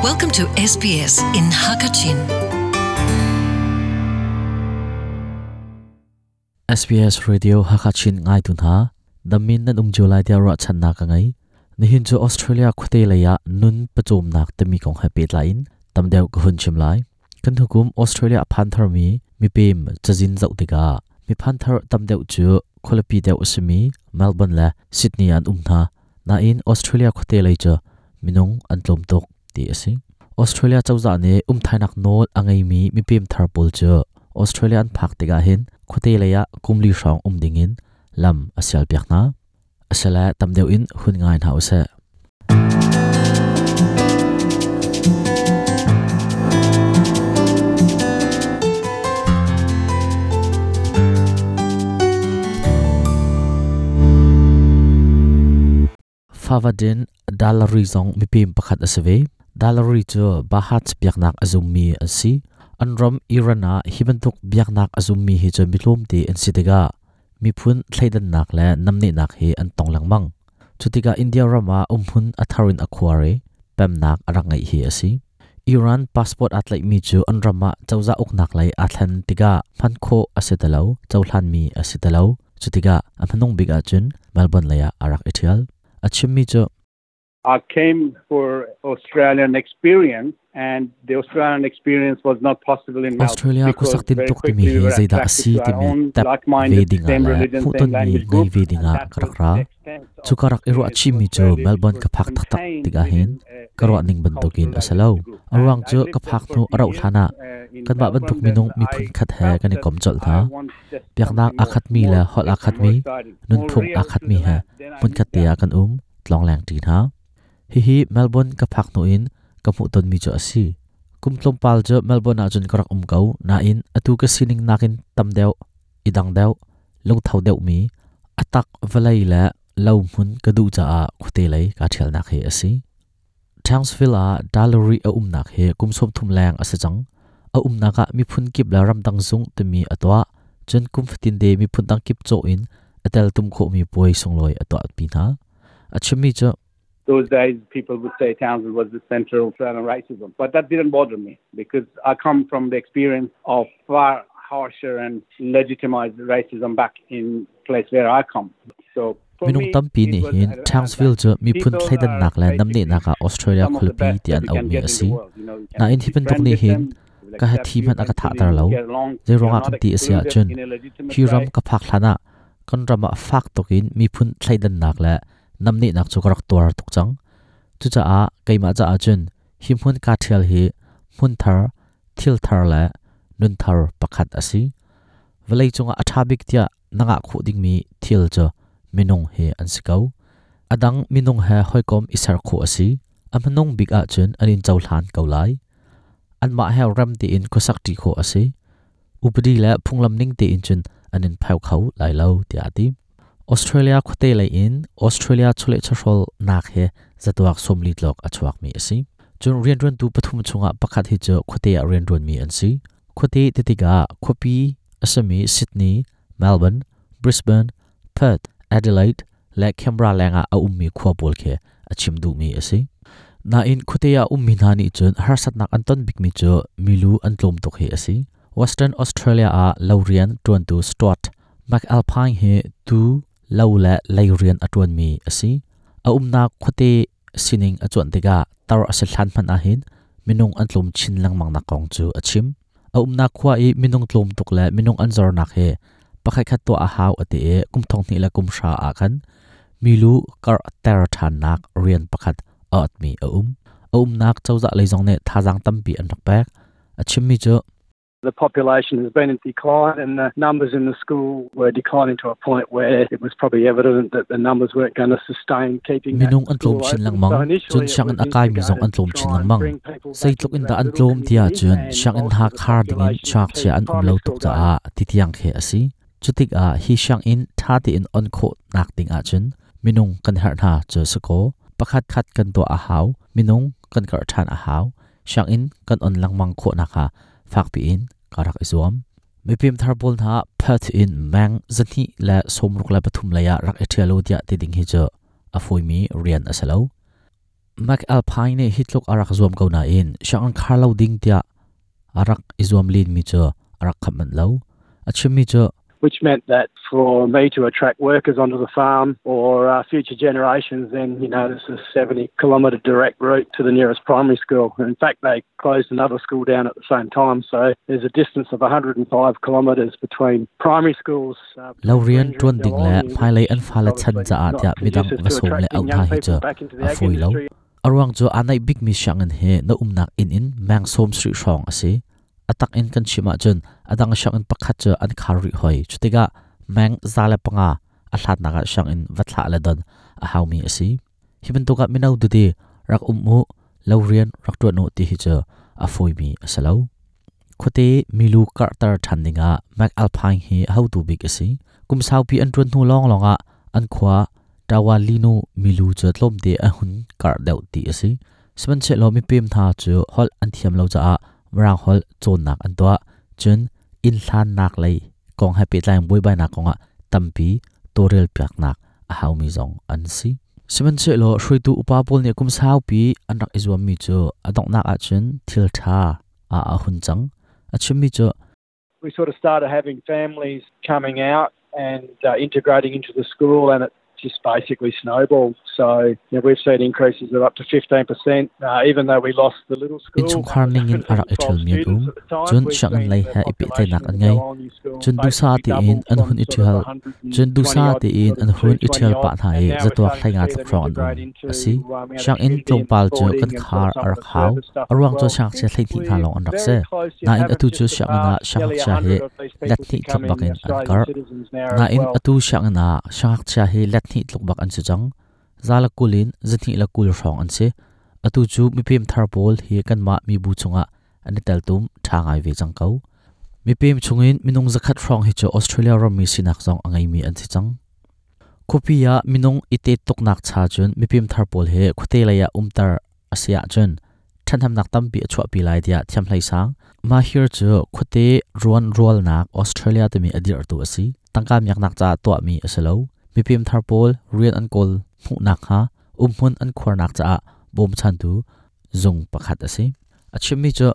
Welcome to SBS in Hakachin. SBS Radio Hakachin ngai tu hna damin nan um lai tia ra chan na ka ngai nihin chu Australia khote leya nun pachom nak temi kong ha pet lain tamdeu ka hun chim lai kan hukum Australia phan thar mi mi pem chajin zau tika mi phan thar tamdeu chu kholapi deu asimi Melbourne la Sydney an um tha na in Australia khote lei chu minung an tlom tok ti asi Australia chawza ne um thainak nol angai mi mi pem thar pol chu Australian phak tika hin khote leya kumli hrang um dingin lam asial piak na asala tamdeu in hun ngai na use Favadin dalari zong mipim pakhat asave dalari chu bahat biaknak azummi asi anram irana hibantuk biaknak azummi hi chu milom te an sitega miphun thleidan nak le namni nak hi an tong langmang chutika India rama umhun atharin akhware pemnak arangai hi asi Iran passport atlai mi chu an rama chawza uknak lai athlan tiga phankho asetalo chawhlan mi asetalo chutika amhanong biga chun Melbourne laya arak ethial achimmi chu I came for Australian experience and the Australian experience was not possible in Melbourne Australia because kusaktin very tuk timi quickly we hi were zaida attracted asi to our timi own tap like-minded, ve dinga same la religion, phuton same mi language ngai group ve and dinga that was karak ra the extent of chu karak iru experience achi mi chu Australia, which Melbourne was ka phak tak tak contained tiga hin within a karwa same ning bantukin cultural asalo identity group. arwang And I chu lived ka there phak for nu a few arau years thana in kan ba bantuk Melbourne minung that mi phun I khat he felt kan i that kom chol I tha want just biaknak something more, akhat mi more le hol different, akhat more mi exciting, nun more phung real akhat to mi the he land. Then I mun khat moved te out. kan tlong lang ti na hi hi Melbourne ka phak nu in ka mu ton mi chu asi kum tlom pal chu Melbourne a chun karak kau na in atu ka sining nakin tam deuh idang deuh lung thau deuh mi atak valai la lo mun ka du cha a khote lei ka thial nak he asi Townsville a dallery a nak he kum som thum lang ase chang a naka mi phun kip la ram dang zung te mi atwa chun kum fatin de mi phun dang kip cho in atel tum kho mi poi songloi atwa pi na achimi chu Those days, people would say Townsville was the center of Australian racism. But that didn't bother me because I come from the experience of far harsher and legitimized racism back in place where I come. So for minung me, tampi it ni was hin an Townsville advantage. chu mi phun People thleidan are nak le namni basically naka Australia some of the khulpi best ti that an you au can mi get in the asi world. You know, you na can in hiban tuk befriend ni with hin them, they will ka ha accept thi you man aka tha eventually, tar you lo get along. zai You're ronga not kan ti asia excluded chun in a legitimate hi ram way. ka phak thlana kan rama fak tokin mi phun thleidan nak le namni nak chu karak tuar tuk chang chu cha a keima cha a chun hi hmun ka thial hi hmun thar thil thar le nun thar pakhat asi valei chunga athabik tia nanga khu ding mi thil chu minung he an sikau adang minung he hoikom isar khu asi amhanung big a chun anin chawhlan kaulai an ma he ram ti in khosak ti kho ase upadi la phunglam ning te in chun anin phau khau lai lo ti ati Australia khote lai in Australia chule chhol nak he zatuak somli tlok achuak mi ase chun rian run tu pathum chunga pakhat hi chu khote a rian run mi an si khote te tiga khopi asami Sydney Melbourne Brisbane Perth Adelaide le Canberra lenga a ummi khwa bol khe achim du mi ase na in khuteya ummi na ni chun harsat nak anton bik mi chu milu an tlom tok he ase Western Australia a Laurian tuan tu Stuart McAlpine he tu lo la Laurian atun mi ase a umna khute sining achuan tega tar ase thlan man a hin minung an tlom chin lang mang na kong chu achim a umna khwa i minung tlom tok la minung an zor nak he pakhai khat to a haw ate e kum thong ni la kum sha a khan milu kar ter than nak rian pakhat at mi a a nak chawza leizong ne thajang tampi an rak pek achim mi chu The population has been in decline and the numbers in the school were declining to a point where it was probably evident that the numbers weren't going to sustain keeping that minung an tlom school chin open. lang mang So initially chun it siang was an akai mi zong an instigated to tlom chin try lang and mang bring people sei back tluk in into da that an little tlom tia community chun and siang in bolster ha the khar ding in population chak to chia keep an um primary lo school tuk cha going. a ti tiang khe asi chutik a hi siang in tha ti in on kho nak ding a chun minung kan har na chu sako pakhat khat kan to a haw minung kan kar than a haw siang in kan on lang mang kho na kha fak pi in karak izuam mipim thar bol na Perth in mang zani la somruk la pathum laya rak ethialo dia ti ding hi chu afoi mi rian asalo McAlpine nih hi tluk a rak zuam ko nain sianginn khar lo ding tiah a rak i zuam len mi cu a rak khap manh lo. A chimmi cu which meant that for me to attract workers onto the farm or uh, future generations, then, you know, this is a 70 kilometre direct route to the nearest primary school. And in fact, they closed another school down at the same time. So there's a distance of 105 kilometres between primary schools. Uh, lo rian ṭuan ding le hmailei an fale chan caah tiah midang va sawm le auh hna hi cu a fawi lo. A ruang cu aa naih bikmi sianginn hi na umnak inn in meng sawm sarih hrawng a si. A tak in kan chim ahcun a dang sianginn pakhat cu an khar rih hoi. Cutikah meng 105 a hlatnak ah sianginn va thlah le don a haumi a si. Hi bantuk ah mino tete rak um u, lo rian rak ṭuan u ti hi cu a fawimi a si lo. Khuate milu karhter ṭhan dingah McAlpine hi hotu bik a si. Kum saupi an ṭuan hnu lawnglawng ah an khua Tawalinu milu cu tlawmte a hun karh deuh ti a si. Sihmanhsehlaw mipem hna cu holh an thiam lo caah Mirang holh cawnnak an tuah. Cun inn hlannak lei kong he pehtlai in buaibainak kongah tampi tawlrelpiaknak a haumi zong an si. Sihmanhsehlaw hruaitu upa pawl nih kum saupi an rak i zuammi cu a donghnak ahcun thil ṭha ah a hun cang. A chimmi cu We sort of started having families coming out and uh, integrating into the school and it just basically snowballed. So you know, we've seen increases of up to 15%, uh, even though we lost the little school. Innchungkhar ningin a rak i ṭhialmi an um. Cun sianginn lei he i pehtlaihnak an ngei. Cun duhsah tein an hun i ṭhial. Cun duhsah tein an hun i ṭhial pah hna i zatuak hleinga tluk hrawng an um. A si. Sianginn tlawmpal cu kan khar a rak hau. A ruang cu siangngakchia 12 hna lawng an rak si. Nain atu cu sianginn ah siangngakchia hi let hnih tluk bak in an karh. Nain atu sianginn ah siangngakchia hi let hnih tluk bak an si cang. 120 in 120 hrawng an si. Atu cu mipem thar pawl hi kanmah mibu chungah an i teltum ṭha ngai ve cang ko. Mipem chungin minung 100 hrawng hi cu Australia rammi sinak zong a ngeimi an si cang. Khuapi ah minung i tet tuknak cha cun mipem thar pawl hi khuate lei ah umter a si ahcun ṭhathnemnak tampi a chuahpi lai tiah thiamhlei sang Mahir cu khuate ruan rualnak Australia timi a dirhtu a si. Tangka miaknak caah tuahmi a si lo. Mipem thar pawl rian an kawl hmuhnak hnga umhmun an khuarnak caah bawmchantu zung pakhat a si. A chimmi cu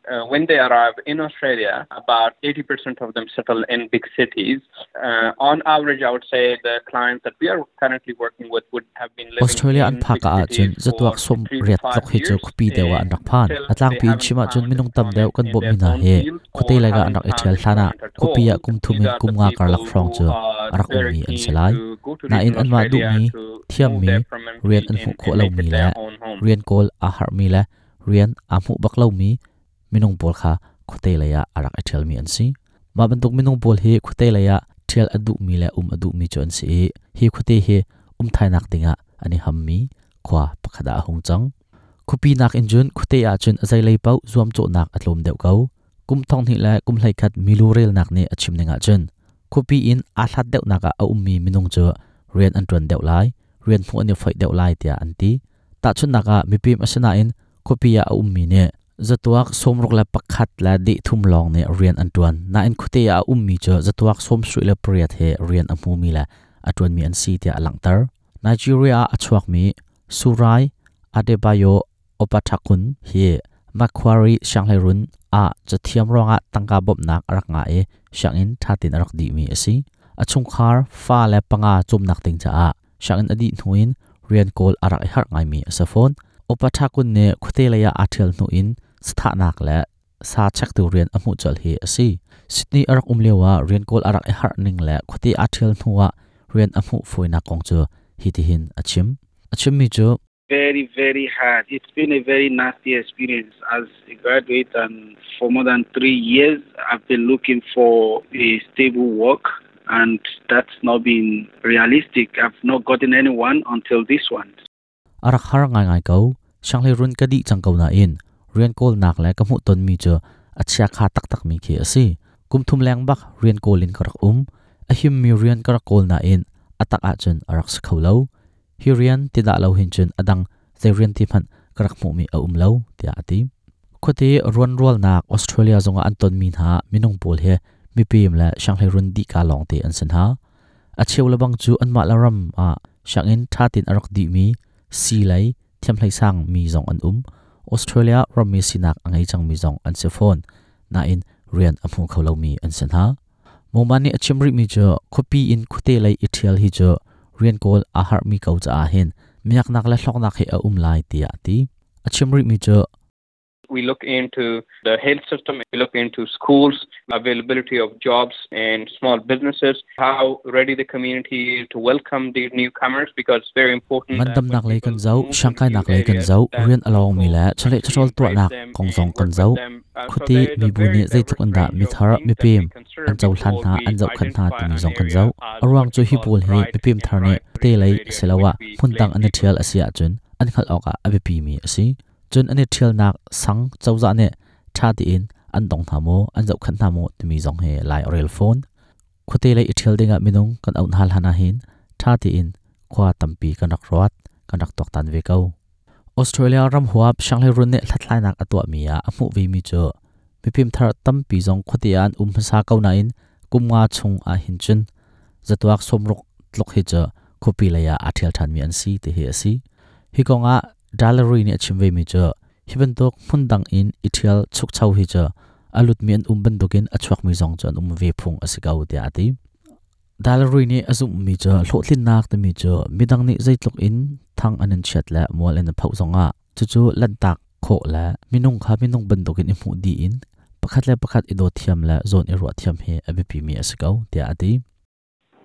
Uh, when they arrive in Australia, about 80% of them settle in big cities. Uh, on average, I would say the clients that we are currently working with would have been living Australia an in phak big ah cun cities zatuak for sawm three to riat five tluk hi cu years khuapi deuh ah an rak phan. until A tlangpi they in chim haven't ahcun found minung tam employment deuh kan in bawmhmi their hna own hi field khuate or lei ah an haven't rak i found ṭhial hlan ah employment at khuapi all. ah kum thum These in are kum the nga karlak people hrawng who cu are a rak very ummi an si keen lai. to go to Nain regional anmah Australia duhmi, to move thiammi, there rian permanently an and, hmuh khawh and make lomi it le their own home. rian kawl aa harhmi le rian aa hmuh bak lomi minung pawl kha khuate lei ah a rak i ṭhialmi an si. Mah bantuk minung pawl hi khuate lei ah ṭhial a duhmi le um a duhmi cu an si i hi khuate hi um thainak dingah an i hammi khua pakhat ah a hung cang. Khuapi nakin cun khuate ah cun a zeilei paoh zuamcawhnak a tlawm deuh ko. Kum 2000 le kum 11 milu relnak nih a chim ning ahcun khuapi in aa hlat deuhnak ah a ummi minung cu rian an ṭuan deuh lai, rian hmuh an i foih deuh lai tiah an ti. Tahchunhnak ah mipim a si nain khuapi ah a ummi nih zatuak 61 le deh thum lawng nih rian an ṭuan. Nain khuate ah a ummi cu zatuak 78 he rian a hmumi le a ṭuanmi an si tiah a langhter. Nigeria ah a chuakmi Surai Adebayo Opathakun hi Macquarie Sianghleirun ah cathiam ruangah tangka bawmhnak a rak ngah i sianginn ṭha tein a rak dihmi a si. A chungkhar fa le panga cawmnak ding caah sianginn a dih hnu in rian kawl a rak i harh ngaimi a si fawn. Opathakun nih khuate lei ah aa ṭhial hnu in sathahnak le sa chektu rian a hmuh colh hi a si. Sydney a rak um lio ah rian kawl a rak i harh ning le khuate aa ṭhial hnu ah rian a hmuh fawinak kong cu hitihin a chim. A chimmi cu very, very hard. It's been a very nasty experience as a graduate, and for more than three years, I've been looking for a stable work, and that's not been realistic. I've not gotten anyone until this one. A rak har ngaingai ko. Sianghleirun ka dih cang ko nain rian kawlnak le ka hmuhtonmi cu a chiakha taktakmi khi a si. Kum thum leng bak rian kawl in ka rak um. A himmi rian ka rak kawl nain a tak ahcun a rak si kho lo. Hi rian ti dah lo hin cun a dang zei rian ti hmanh ka rak hmuhmi a um lo, tiah a ti. Khuate ruanrualnak Australia zongah an tonmi hna minung pawl hi mipem le sianghleirun dihka lawngte an si hna. A cheu lebang cu anmah le ram ah sianginn ṭha tein a rak dihmi sii lei, Thiamhlei sang mi zong an um. Australia rammi sinak a ngei cangmi zong an si fawn. Nain rian a hmu kho lomi an si hna. Moman nih a chim rihmi cu khuapi in khuate lei i ṭhial hi cu rian kawl aa harhmi ko caah hin miaknak le hlawknak hi a um lai tiah a ti. A chim rihmi cu We look into the health system, we look into schools, availability of jobs and small businesses, how ready the community is to welcome these newcomers because it's very important. Ngandamnak lei kan zoh, siangkainak lei kan zoh, rian a lawngmi le chawleh chawhrawl tuahnak kong zong kan zoh. Khuate mibu nih zeitluk in dah mithar, mipem an cohlan hna, an zohkhenh hna timi zong kan zoh. A ruang cu hi pawl hi mipem thar nih khuate lei asiloah hmundang an i ṭhial a si ahcun an hngalh awkah a biapimi a si. Cun an i ṭhialnak sang cozah nih ṭha tein an dong hna maw, an zohkhenh hna maw timi zong hi lai a rel fawn. Khuate lei i ṭhial dingah minung kan auh hna hlan ahhin ṭha tein khua tampi kan rak ruat, kan rak tuaktan ve ko. Australia ram huap sianghleirun nih hlathlainak a tuahmi ah a hmuh vemi cu mifimthar tampi zong khuate ah an um hmasa ko nain kum nga chung ahhin cun zatuak sawmruk tluk hi cu khuapi lei ah aa ṭhial ṭhanmi an si ti hi a si. Hi kong ah Dallery nih a chim vemi cu hi bantuk hmundang in i ṭhial chukcho hi cu a lutmi an um bantukin a chuakmi zong cu an um ve phung a si ko tiah a ti. Dallery nih a zumhmi cu hlawhtlinnak timi cu midang nih zeitluk in thang an in chiat le mual in a phoh zongah cucu lanhtak khawh le minung kha minung bantukin i hmuh dih in pakhat le pakhat i dawt thiam le zawn i ruah thiam hi a biapimi a si ko tiah a ti.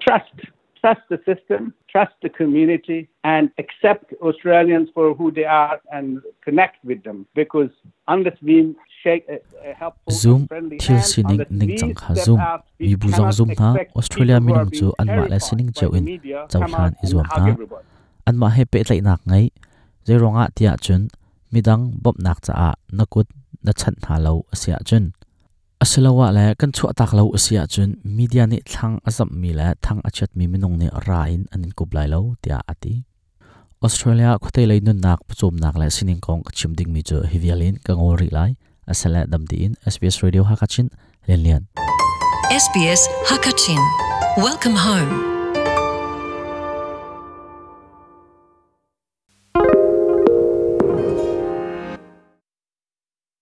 Trust. Trust the system, trust the community, and accept Australians for who they are and connect with them. Because unless we shake a, a helpful Zoom and friendly thil hand, sining unless we ningcang kha step zum. out, we Mibu zong cannot zum hna. expect Australia people who are minung cu being anmah le terrified sining by cio the in media come cohlan out i and zuam hug hna. everybody. Anmah he pehtlaihnak ngei. Zeiruangah tiah cun midang bawmhnak caah na kut na chanh hna lo a si ahcun Asiloah le kan chuahtak lo a si ahcun media nih thlang a zamhmi le thang a chiatmi minung nih ra in an in kup lai lo tiah a ti. Australia khuate lei nunnak pawcawmnak le sining kong ka chim dingmi cu hi vial in ka ngol rih lai. Asale dam tiin SBS Radio Hakachin Lian Lian. SBS Hakachin. Welcome home.